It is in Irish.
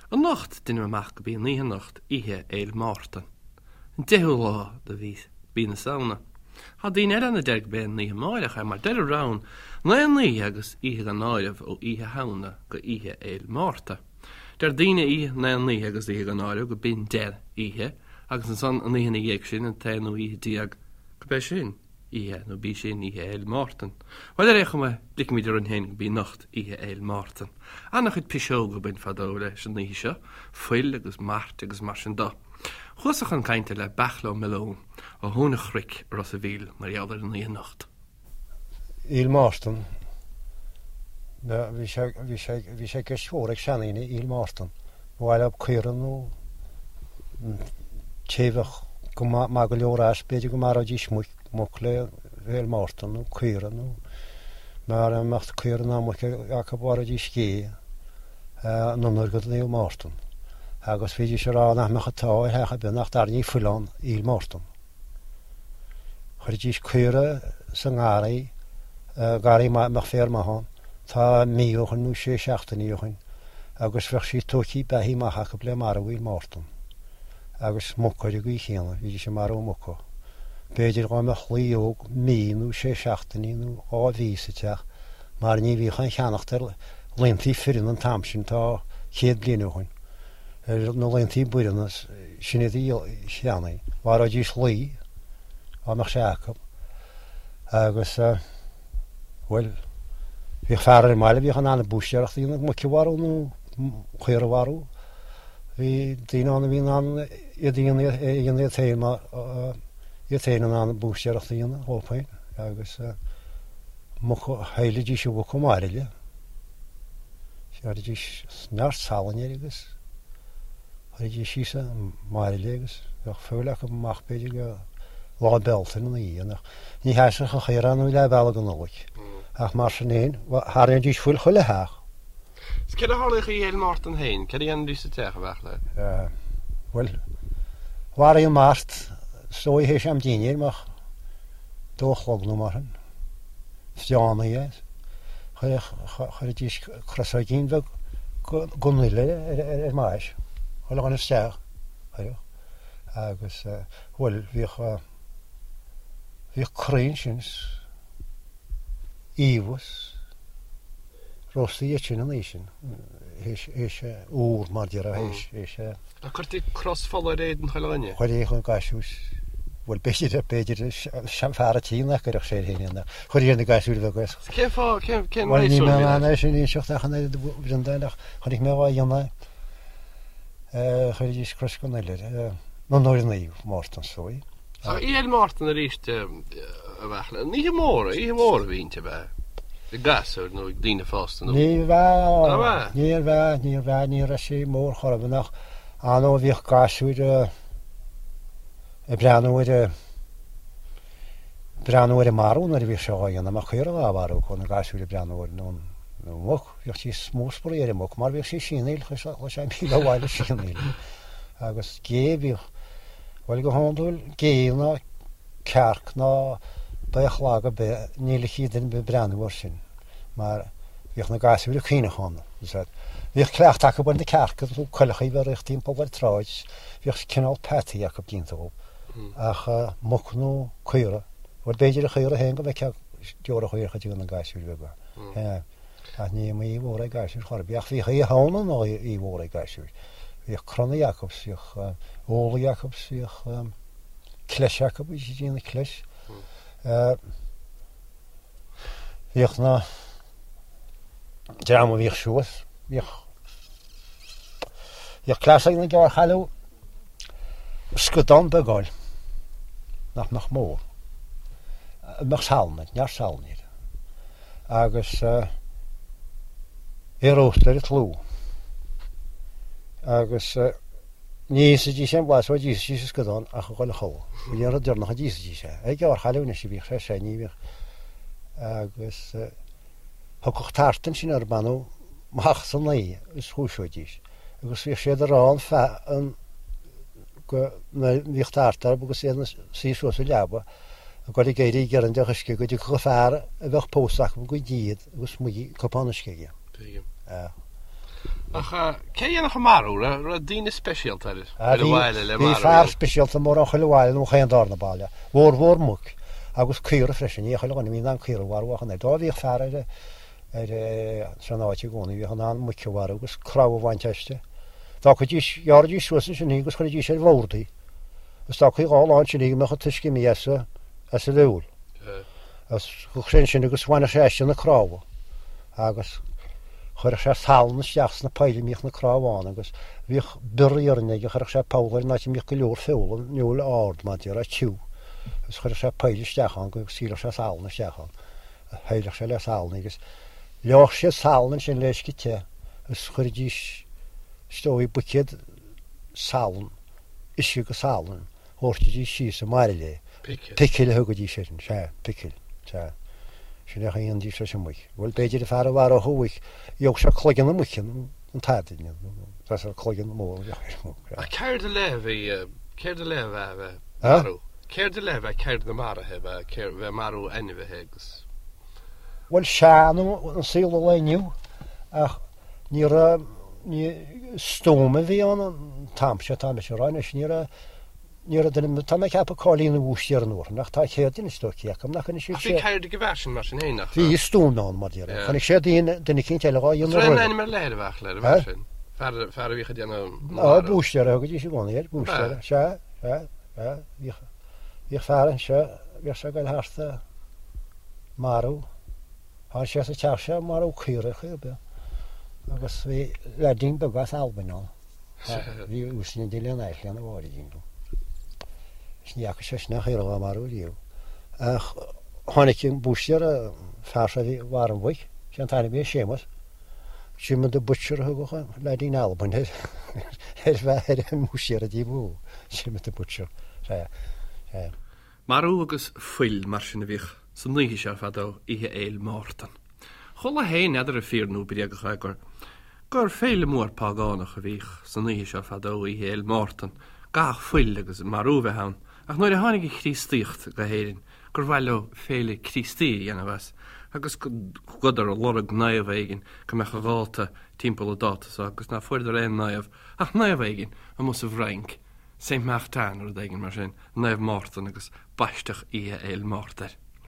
Anocht, deinim amach go b'í an oíche anocht Oíche Fhéil Mártan, an deichiú lá de mhí na Samhna. Tá daoine eile ann a deir go b'é an oíche amáireach é, mar deir an rann, Naoi n-oíche agus oíche gan áireamh ó Oíche Shamhna go Oíche Fhéil Márta. Deir daoine oíche naoi n-oíche agus oíche gan áireamh go b'in deich oíche agus ansan an oíche ina dhiaidh sin, an t-aonú oíche déag, go b'é sin. oíche, nó b'í sin Oíche Fhéil Mártan. Bhuel, ar aon chuma, ligfimid orainn féin go b'í anocht Oíche Fhéil Mártan. Ana-chuid piseoga a bain fadó leis an oíche seo, fuil agus mairt agus mar sin do. Chuas-sa chun cainte le Beartla Ó Miolláin ó Thóin an Chnoic i Ros a' Mhíl mar gheall ar an oíche anocht. Fhéil Mártan. Bhí sé, bhí sé, bhí sé i gceist mhór ag seandaoine Fhéil Mártan. Ba mhaith leo caora nó té a bheadh go maith go leor as, b'fhéidir go maróidís muc, muc le Féil Mártan nó caora nó mara mbeadh caora ná muc acu mharóidís gé in onóir go Naomh Mártan. Agus bhídís ag rá nach mbeadh an t-ádh ar theach ar bith nach dtarraingí fuil ann Fhéil Mártan. Chuiridís caora sa ngarraí, garraí maith a mbeadh féar maith ann, tá mí ó shoin nó sé seachtainí ó shoin, agus bheadh sí tóigthí beathaithe amach acu le marú Fhéil Mártan. Agus muca ar an gcaoi chéanna, bhídís ag marú muca. B'fhéidir dhá mbeadh lao óg mí nó sé seachtainí nó dhá mhí sa teach, mar ní bhíodh aon cheannacht ar laontaí fireann an t-am sin, tá céad bliain ó shoin, ar na laontaí baireanna, sin iad a cheannaigh. Mharóidís lao, dhá mbeadh sé acu. Agus, bhuel, bhíodh fear ar an mbaile a bhíodh in ann an búistéireacht a dhéanamh, muic a mharú nó caora a mharú. Bhí daoine ann a bhí in ann iad a dhéanamh iad féin mar, iad féin in ann an búistéireacht a dhéanamh dhóibh féin. Agus muc, shaillidís an mhuc i mbairille. Chuiridís neart salainn air agus. Chuiridís síos i mbairille agus bheadh feoil acu amach b'fhéidir go Lá Bealtaine ina dhiaidh. Ach ní sheasfadh an chaora nó leath bealaigh go Nollaig. Ach mar sin féin, tharraingídís fuil chuile theach. Is céard a tharlaíodh Oíche Fhéil Mártan féin? Céard a dhéanaidís sa teach, a Bheartla? Bhuel, mharaigh an mart is dóigh théis am dinnéir, amach dó a chlog nó mar sin. Fiánaí é. Chuiridís crosóigín bheag den fhuil ar an mais, chuile dhuine isteach, chuireadh. Agus, bhuel, bhíodh, bhíodh croí ansin, iamhas, róstaí iad sin an oíche sin, théis úr mar déarfá, théis, théis. Ach cuirtí cros fola ar éadan chuile dhuine? Chuirtí chun gasúir, bhuel b'fhéidir, b'fhéidir fear an tí nach gcuirfeadh sé air féin é, chuirtí ar na gasúir bheaga é. Cén fáth, cén, cén Bhuel níl mé in ann é sin a inseacht ach an oiread a Bhreandáin ach chonaic mé á dhéanamh, chuiridís cros den fhuil air, in onóir Naomh Mártan is dóigh. Ach Oíche Fhéil Mártan arís a Bheartla, an oíche mhór, oíche mhór a bhí inti ab ea? Ag gasúir nó ag daoine fásta nó? Níorbh ea, níorbh ea, níorbh ea, ní raibh sí mór chor ar bith ach ar ndóigh bhíodh gasúir ag breathnú ar a, breathnú ar an marú nuair a bhíodh sé á dhéanamh, má caora á mharú acu, na gasúir ag breathnú ar an muc, bhíodh sí is mó spraoi ar an muc mar bhíodh sí ag sianaíl, chuaigh sé míle abhaile ag sianaíl agus gé bhíodh, Bhuel, go hiondúil, gé ná cearc ná baoth lag ar bith, ní ligfí duine ar bith breathnú air sin, mar bhíodh na gasúir ag caoineadh ann. Bhíodh cleachtadh acu ar na cearca, nó coileacha a bheith ag rith timpeall ar an tsráid, bhíodh cineál peataí acu déanta dhóibh. Ach muc nó caora, bhuel b'fhéidir an chaora féin go bhfeicfeá deora chaorach ag na gasúir bheaga. Ach ní oíche mhór ag gasúir chor ar bith. Ach bhíodh Oíche Shamhna ina oíche mhór ag gasúir. Bhíodh crannaí acu, bhíodh olaí acu, bhíodh cleis acu, bhí siad ag déanamh cleis. Bhíodh na dream a bhíodh suas, bhíodh bhíodh cleas ag na gearrchailí scadán beag a fháil nach mbeadh mór, a mbeadh salann air, neart salainn air. agus é a róstadh ar an tlú. Agus ní íosfaidís aon bhlas ó d'íosfaidís an scadán ach a dhul a chodladh. B'in an rud deireanach a d'íosfaidís é. Ag gearrchailí anois a bhíodh sé sé ní bhíodh. Agus thiocfadh tart ansin orthu b'annamh amach san oíche is dhúiseoidís. Agus bhíodh siad ag rá an feadh an go mbíodh tart orthu agus iad ina suí suas sa leaba. ag dul ag éirí ag iarraidh deoch uisce go dtiocfadh an fear a bheadh pósta acu go dtí iad agus mug cupán uisce aige. Tuigim. Ach cé a dhéanfadh an marú? Raibh daoine speisialta ar an bhaile le marú? Bhí fear speisialta mórán chuile bhaile nó chaon darna baile. Mhórmhór muc agus caora freisin. Ní chuile dhuine a bhí in ann caora a mharú ach an oiread. Dá bhíodh fear ar ar san áit i gcónaí bhíodh in ann muic a mharú agus cnámha a bhaint aisti. D'fhágfaidís, ghearraidís suas ansin í agus chuiridís ar bhord í. Agus d'fhágfaí dhá lá ansin í go mbeadh an t-uisce imithe as a as a bheul. Agus chuaigh sé ansin agus bhaineadh sé aisti na cnámha agus chuireadh sé salann isteach sna poill a mbíodh na cnámha ann agus bhíodh bior iarainn aige, chuireadh sé poll air in áit a mbíodh go leor feola, an fheoil ard mar a déarfá, tiubh, agus chuireadh sé poill isteach ann go scaoilfeadh sé salann isteach ann. Shaileadh sé le salann agus leáfadh siad salann ansin le uisce te agus chuiridís is dóigh buicéad salann, uisce agus salann. Dhoirtidís síos i mbairille é. Picil. Picil a thugaidís air, sea, picil, sea. Sin é a dhéanaidís leis an muic. Bhuel, b'fhéidir an fear a mharódh an mhuic, gheobhadh sé cloigeann na muice, an t-airgead, nó tá cloigeann mór a bheadh ar an muic. Ach ceird ar leith a bhí, ceird ar leith ab ea a bheith ag marú? Ceird ar leith ab ea ceird na maraithe, ab ea, bheith ag marú ainmhithe agus. Bhuel, sea, nó an saol an lae inniu, ach ní raibh, ní, stuaim a bhí ann an t-am seo, tá mise a rá anois, ní raibh, ní raibh duine, tá mé ag ceapadh cá'il aon bhúistéir an uair sin, ach tá céard anois dó cé acu nach anois Ach bhí ceird ag an bhfear sin mar sin fhéin, nach raibh? Bhí stuaim ann, mar déarfá. Chonaic sé duine, duine eicínt eile dhá dhéanamh roimhe. Raibh aon ainm ar leith ar an bhfear, ar an bhfear sin? Fear, fear a bhíodh ag déanamh na marú. Á, búistéir a thugaidís i gcónaí air, búistéir, sea, sea, sea, bhíodh, bhíodh fear anseo, bhíodh sé ag goil thart ag marú. Tháinig sé sa teach seo ag marú caora ar chaoi ar bith agus bhí leaidín beag as Albain ann. Bhí uaisne de lena ais lena mháirín dó. Is ní fhaca sé sin aon chaora dhá marú riamh. Ach tháinig an búistéir, an fear seo a bhí mharaigh an mhuic, sé an t-ainm a bhí air Séamus, Jim the Butcher a thugadh an leaidín Albain air ar ar an mbúistéir a dtí mó, Jim the Butcher. Sea, sea. Marú agus fuil mar sin a bhíodh san oíche seo fadó, Oíche Fhéil Mártan. Chuala féin, n'fheadar an fíor nó bréagach é, gur gur féile mór págánach a bhíodh san oíche seo fadó, Oíche Fhéil Mártan, gcaithfeadh fuil agus marú bheith ann, ach nuair a tháinig an Chríostaíocht go hÉirinn gur mhaith leo féile Críostaí a dhéanamh as agus chuadar ag lorg naomh éigin go mbeadh a dháta timpeall an dáta so agus ná fuaireadar aon naomh ach naomh éigin amuigh sa bhFrainc, Saint Martin nó rud éigin mar sin, Naomh Mártan agus baisteadh Oíche Fhéil Márta air.